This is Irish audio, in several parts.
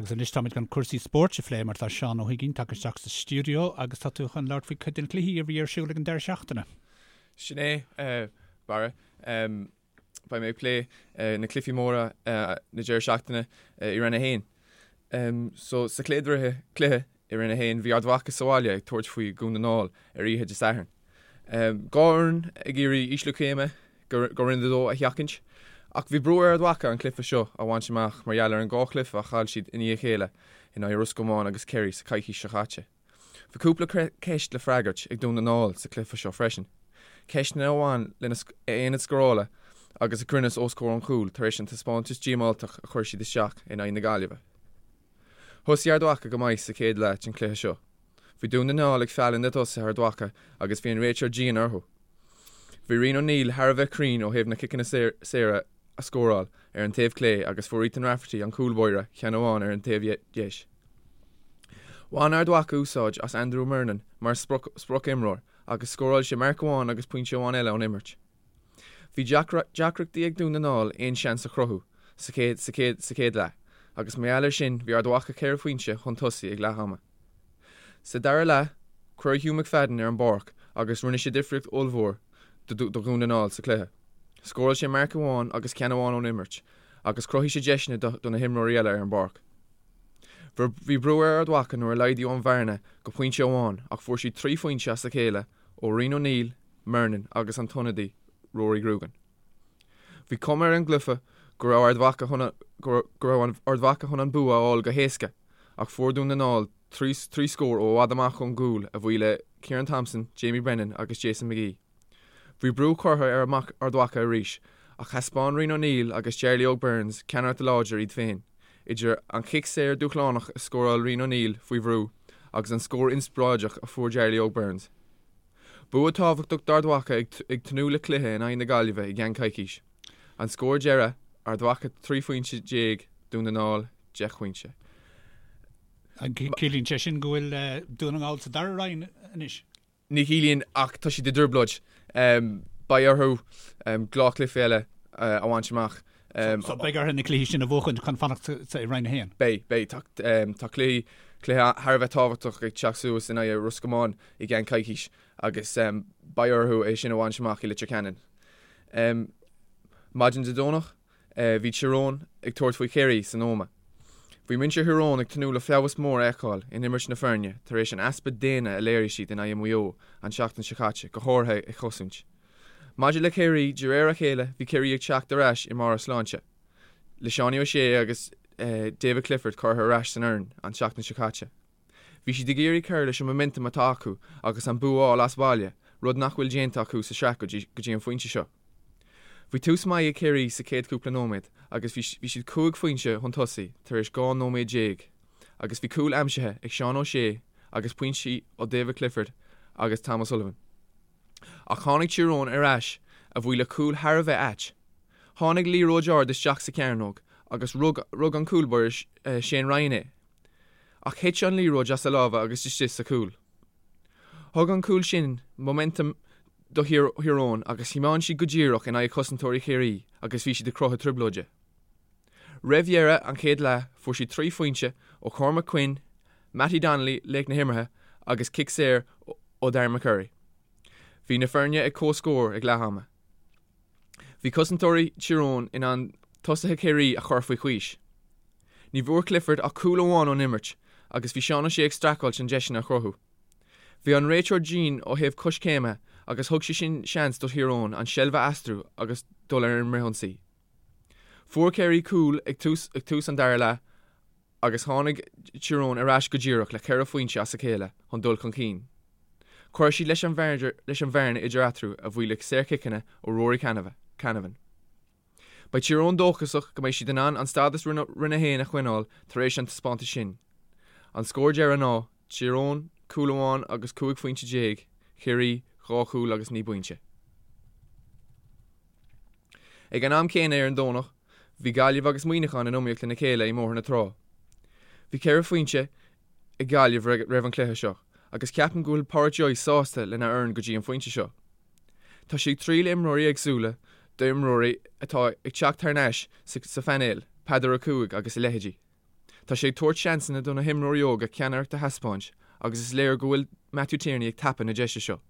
Agus anois táimid chun cúrsaí spóirt a phlé mar tá Seán Ó hUiginn tagtha isteach sa stiúideo agus tá tú chun labhairt faoi cuid de na cluichí a bhí ar siúl ag an deireadh seachtaine. Sin é, Barra. Beidh mé ag plé na cluichí móra na deireadh seachtaine i Roinn 1. So, sa chéad cluiche i Roinn 1, bhí Ard Mhacha sa bhaile ag tabhairt faoi Dhún na nGall ar oíche Dé Sathairn. 2 fhoireann ag iarraidh ísliú céime go Roinn 2 a sheachaint, ach bhí brú ar Ard Mhacha an cluiche seo a bhaint amach mar gheall ar an dhá chluiche a chaill siad i ndiaidh a chéile in aghaidh Ros Comáin agus Kerry sa choicís seo chaite. Bhí cúpla ceist le freagairt ag Dún na nGall sa chluiche seo freisin, ceisteanna a bhain lena aonad scórála agus a gcruinneas os comhair an chúil tar éis an taispeántas díomáltach a chuir siad isteach in aghaidh na Gaillimhe. Thosaigh Ard Mhacha go maith sa chéad leath den chluiche seo. Bhí Dún na nGall ag fealladh na dtosaithe Ard Mhacha agus bhí an réiteoir dian orthu. Bhí Rian O'Neill thar a bheith cruinn ó thaobh na ciceanna saora a scóráil ar an taobh clé agus fuair Ethan Rafferty an cúl báire ceann amháin ar an taobh dheis. Bhain Ard Mhacha úsáid as Andrew Murnin mar sprioc-imreoir agus scóráil sé marc amháin agus pointe amháin eile ón imirt. Bhí deacrachtaí ag Dún na nGall aon seans a chruthú sa chéad leath agus mar gheall air sin bhí Ard Mhacha ceithre phointe chun tosaigh ag leath ama. Sa dara leath, cuireadh Hugh McFadden ar an bpáirc agus rinne sé difríocht ollmhór do Dhún na nGall sa chluiche. Scóráil sé marc amháin agus ceann amháin ón imirt agus chruthaigh sé deiseanna do na himreoirí eile ar an bpáirc. Bhí brú ar Ard Mhacha nuair a laghdaíodh an bhearna go pointe amháin ach fuair siad 3 phointe as a chéile ó Rian O'Neill, Murnin agus an t-ionadaí Rory Grugan. Bhí cuma ar an gcluiche go raibh Ard Mhacha chun go raibh Ard Mhacha chun an bua a fháil go héasca ach fuair Dún na nGall 3 scór ó i bhfad amach ón gcúl a bhuí le Ciarán Thompson, Jamie Brennan agus Jason McGee. Bhí brú curtha ar Ard Mhacha arís ach thaispeáin Rian O'Neill agus Jarly Óg Burns ceannaireacht láidir iad féin, idir an chic saor dúshlánach a scóráil Rian O'Neill faoi bhrú agus an scór inspioráideach a fuair Jarly Óg Burns. Bua tábhachtach d'Ard Mhacha ag tnúth le cluiche in aghaidh na Gaillimhe i gceann coicís. An scór deiridh, Ard Mhacha 13 phointe, Dún na nGall 10 phointe. Ciallaíonn sé sin go bhfuil Dún na nGall sa dara roinn anois? Ní chiallaíonn ach tá siad i dtrioblóid. Beidh orthu dhá chluiche eile a bhaint amach. So beidh orthu na cluichí sin a bhuachaint chun fanacht sa Roinn 1? Beidh, beidh. Tá cluiche thar a bheith tábhachtach ag teacht suas in aghaidh Ros Comáin i gceann coicís agus beidh orthu é sin a bhaint amach i Leitir Ceanainn. Maidin Dé Domhnach, Bhí Tír Eoghain ag tabhairt faoi Chiarraí san Ómaigh. Bhí muintir Thír Eoghain ag tnúth le feabhas mór a fheiceáil in imirt na foirne tar éis an easpa déine a léirigh siad in aghaidh Mhaigh Eo an tseachtain seo caite, go háirithe ag cosaint. Maidir le Ciarraí, de réir a chéile bhí Ciarraí ag teacht ar ais i mbarr a sláinte, le Seánie O'Shea agus David Clifford curtha ar ais san fhoireann an tseachtain seo caite. Bhí siad ag iarraidh cur leis an momentum atá acu agus an bua a fháil as baile, rud nach bhfuil déanta acu sa sraith go dtí an phointe seo. Bhí tús maith ag Ciarraí sa chéad cúpla nóiméad agus bhí siad 5 phointe chun tosaigh tar éis 12 nóiméad agus bhí cúl aimsithe ag Seán O'Shea agus pointí ó David Clifford agus Tom O'Sullivan. Ach tháinig Tír Eoghain ar ais a bhuí le cúl thar a bheith ait. Tháinig liathróid ard isteach sa chearnóg agus rug an cúl báire Shane Ryan é. Ach thit an liathróid as a lámha agus istigh sa chúl. Thug an cúl sin momentum do Thír Eoghain agus thiomáin siad go díreach in aghaidh chosantóirí Chiarraí agus bhí siad ag cruthú trioblóide. Roimh dheireadh an chéad leath fuair siad 3 phointe ó Cormac Quinn, Mattie Donnelly, laoch na himeartha, agus cic saor ó Darren McCurry. Bhí na foirne ag comhscór ag leath ama. Bhí cosantóirí Thír Eoghain in ann tosaithe Chiarraí a chur faoi chois. Ní bhfuair Clifford ach cúl amháin ón imirt agus bhí Seán O'Shea ag streachailt chun deiseanna a chruthú. Bhí an réiteoir dian ó thaobh coiscéime agus thug sé sin seans do Thír Eoghain an seilbh a aistriú agus dul ar an bhfrithionsaí. Fuair Ciarraí cúl ag tús an dara leath agus tháinig Tír Eoghain ar ais go díreach le ceithre phointe as a chéile chun dul chun cinn. Chuir siad leis an bhearna idir eatarthu a bhuí le saorchiceanna ó Rory Canavan. Beidh Tír Eoghain dóchasach go mbeidh siad in ann an stádas Roinn 1 a choinneáil tar éis an taispeántais sin. An scór deiridh ná, Tír Eoghain, cúl amháin agus 15 phointe, Ciarraí, 2 chúl agus 9 bpointe. Ag an am céanna ar an Domhnach, bhí Gaillimh agus Muineachán in iomaíocht lena chéile i mBóthar na Trá. Bhí ceithre phointe ag Gaillimh roimh an chluiche seo agus ceapaim go bhfuil Pádraic Joyce sásta lena fhoireann go dtí an phointe seo. Tá sé ag triail imreoirí éagsúla d'imreoirí atá ag teacht thar n-ais sa phainéal, Peadar Ó Cuaig agus a leithéidí. Tá sé ag tabhairt seansanna do na himreoirí óga ceannaireacht a thaispeáint agus is léir go bhfuil Matthew Tierney ag tapadh na deise seo.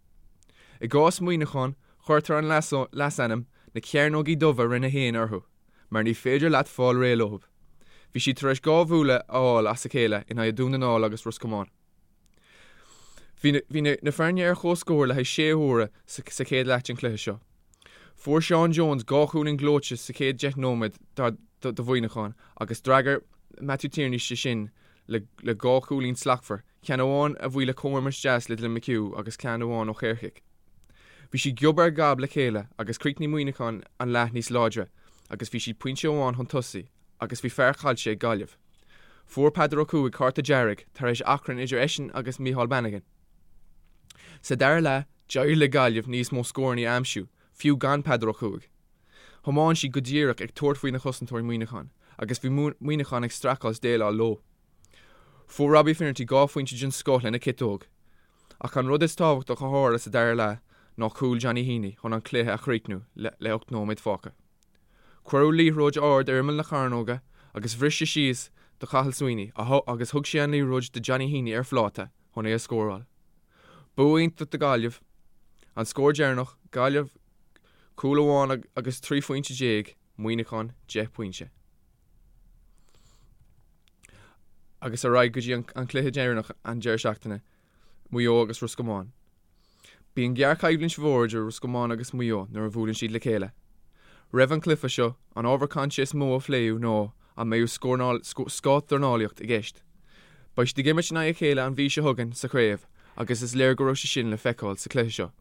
I gcás Mhuineacháin, cuirtear an leasainm 'na Cearnógaí Dubha Roinn 1' orthu mar ní féidir leat fáil réidh leo. Bhí siad tar éis 2 bhualadh a fháil as a chéile in aghaidh Dún na nGall agus Ros Comáin. Bhí na foirne ar comhscór le haghaidh sé huaire sa chéad leath den chluiche seo. Fuair Seán Jones 2 chúilín gleoite sa chéad 10 nóiméad do Mhuineachán agus d'fhreagair Matthew Tierney sé sin le 2 chúilín slachtmhar, ceann amháin a bhuí le comhimirt deas le Dylan McHugh agus ceann amháin ó shaorchic. Bhí siad giob ar ghab le chéile agus chríochnaigh Muineachán an leath níos láidre agus bhí siad pointe amháin chun tosaigh agus bhí fear caillte ag Gaillimh. Fuair Peadar Ó Cuaig cárta dearg tar éis achrann idir eisean agus Micheál Bannigan. Sa dara leath, d'éirigh le Gaillimh níos mó scóranna a aimsiú, fiú gan Peadar Ó Cuaig. Thiomáin siad go díreach ag tabhairt faoi na chosantóirí Muineachán agus bhí Muineachán ag streachailt déileáil leo. Fuair Robbie Finnerty 2 phointe den scoth lena chiotóg. Ach an rud is tábhachtach a tharla sa dara leath ná cúl Johnny Heaney chun an cluiche a chríochnú le 8 nóiméad fágtha. Cuireadh liathróid ard ar imeall na cearnóige agus bhris sé síos do Chathal Sweeney agus thug sé an liathróid do Johnny Heaney ar phláta chun é a scóráil. Bua iontach do Ghaillimh. An scór deireanach, Gaillimh cúl amháin agus 13 phointe, Muineachán 10 pointe. Agus ar aghaidh go dtí an cluiche deireanach an deireadh seachtaine, Maigh Eo agus Ros Comáin. Bíonn géarchoimhlint mhór idir Ros Comáin agus Maigh Eo nuair a bhuaileann siad le chéile. Roimh an chluiche seo, an ábhar cainte is mó a phléadh ná an mbeadh scáthdhornálaíocht i gceist. Beidh siad ag imirt in aghaidh a chéile an mhí seo chugainn sa chraobh agus is léir go raibh sé sin le feiceáil sa chluiche seo.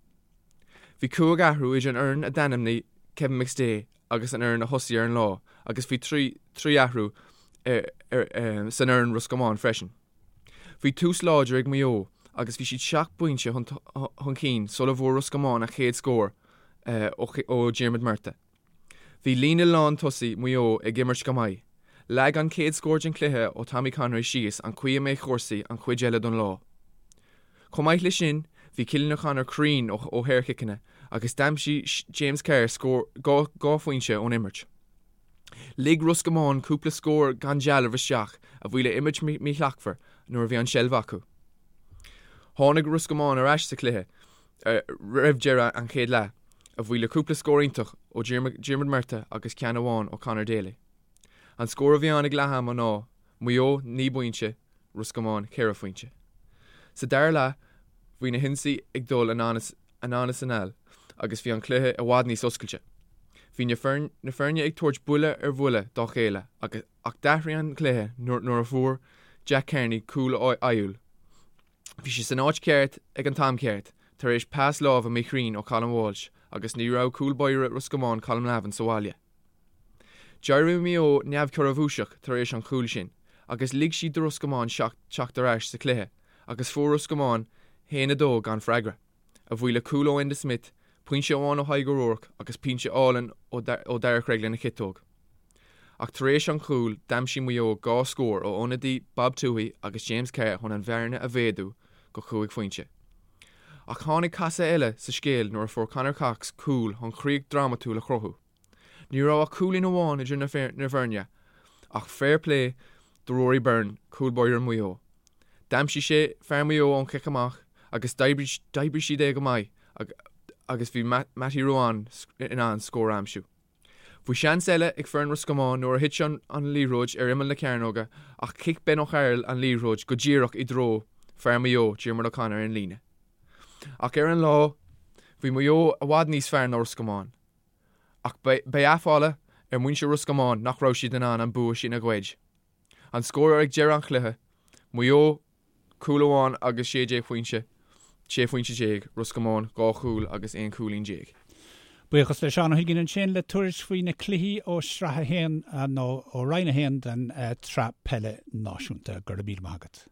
Bhí cúig athrú idir an fhoireann a d'ainmnigh Kevin McStay agus an fhoireann a thosaigh ar an lá agus bhí 3 athrú san fhoireann Ros Comáin freisin. Bhí tús láidir ag Maigh Eo agus bhí siad 7 bpointe chun cinn sula bhfuair Ros Comáin a chéad scór ó Diarmuid Murtagh. Bhí líne lán tosaigh Mhaigh Eo ag imirt go maith. Leag an chéad scór den chluiche ó Tommy Conroy síos an chaoi a mbeidh cúrsaí an chuid eile don lá. Chomh maith leis sin, bhí Cillian O'Connor cruinn ó shaorchiceanna agus d'aimsigh James Carr scór 2 phointe ón imirt. Lig Ros Comáin cúpla scór gan dealramh isteach a bhuí le imirt mhíshlachtmhar nuair a bhí an tseilbh acu. Tháinig Ros Comáin ar ais sa chluiche roimh deireadh an chéad leath, a bhuí le cúpla scór iontach ó Diarmuid Murtagh agus ceann amháin ó Conor Daly. An scór a bhí ann ag leath ama ná, Maigh Eo 9 bpointe, Ros Comáin 4 phointe. Sa dara leath bhí na hionsaí ag dul anonn is anall agus bhí an cluiche i bhfad níos oscailte. Bhí na foirne ag tabhairt buille ar bhuille dá chéile ach d'athraigh an cluiche nuair a fuair Jack Carney cúl ádhúil. Bhí sé san áit cheart ag an t-am ceart tar éis pas láimhe míchruinn ó Colm Walsh agus ní raibh cúl báire Ros Comáin Colm Lavin sa bhaile. D'éirigh Maigh Eo neamhchorrabhuaiseach tar éis an chúil sin agus lig siad do Ros Comáin teacht ar ais sa chluiche agus fuair Ros Comáin 1-2 gan freagra, a bhuí le cúl ó Enda Smith, pointe amháin ó Thadhg O'Rourke agus pointe álainn ó Darragh Cregg lena chiotóg. Ach tar éis an chúil, d'aimsigh Maigh Eo 2 scór ó ionadaí Bob Tuohy agus James Carr chun an bhearna a mhéadú go chúig phointe. Ach tháinig casadh eile sa scéal nuair a fuair Conor Cox cúl chun críoch drámatúil a chruthú. Ní raibh ach cúilín amháin idir na foirne, ach fair play do Rory Byrne, cúl báire Mhaigh Eo. D'aimsigh sé fear Mhaigh Eo ón chic amach agus d'oibrigh siad é go maith agus bhí Mattie Ruane in ann scór a aimsiú. Bhí seans eile ag foireann Ros Comáin nuair a thit an liathróid ar imeall na cearnóige ach chic Ben O'Carroll an liathróid go díreach i dtreo fear Mhaigh Eo, Diarmuid O'Connor ar an líne. Ach ar an lá, bhí Maigh Eo i bhfad níos fearr ná Ros Comáin. Ach beidh aiféala ar mhuintir Ros Comáin nach raibh siad in ann an bua sin a ghoid. An scór ag deireadh an chluiche, Maigh Eo cúl amháin agus 16 phointe, 16 phointe, Ros Comáin 2 chúl agus 11 cúilín. Buíochas le Seán Ó hUiginn ansin le tuairisc faoi na cluichí ó Shraith 1 nó ó Roinn 1 den tSraith Peile Náisiúnta. Go raibh míle maith agat.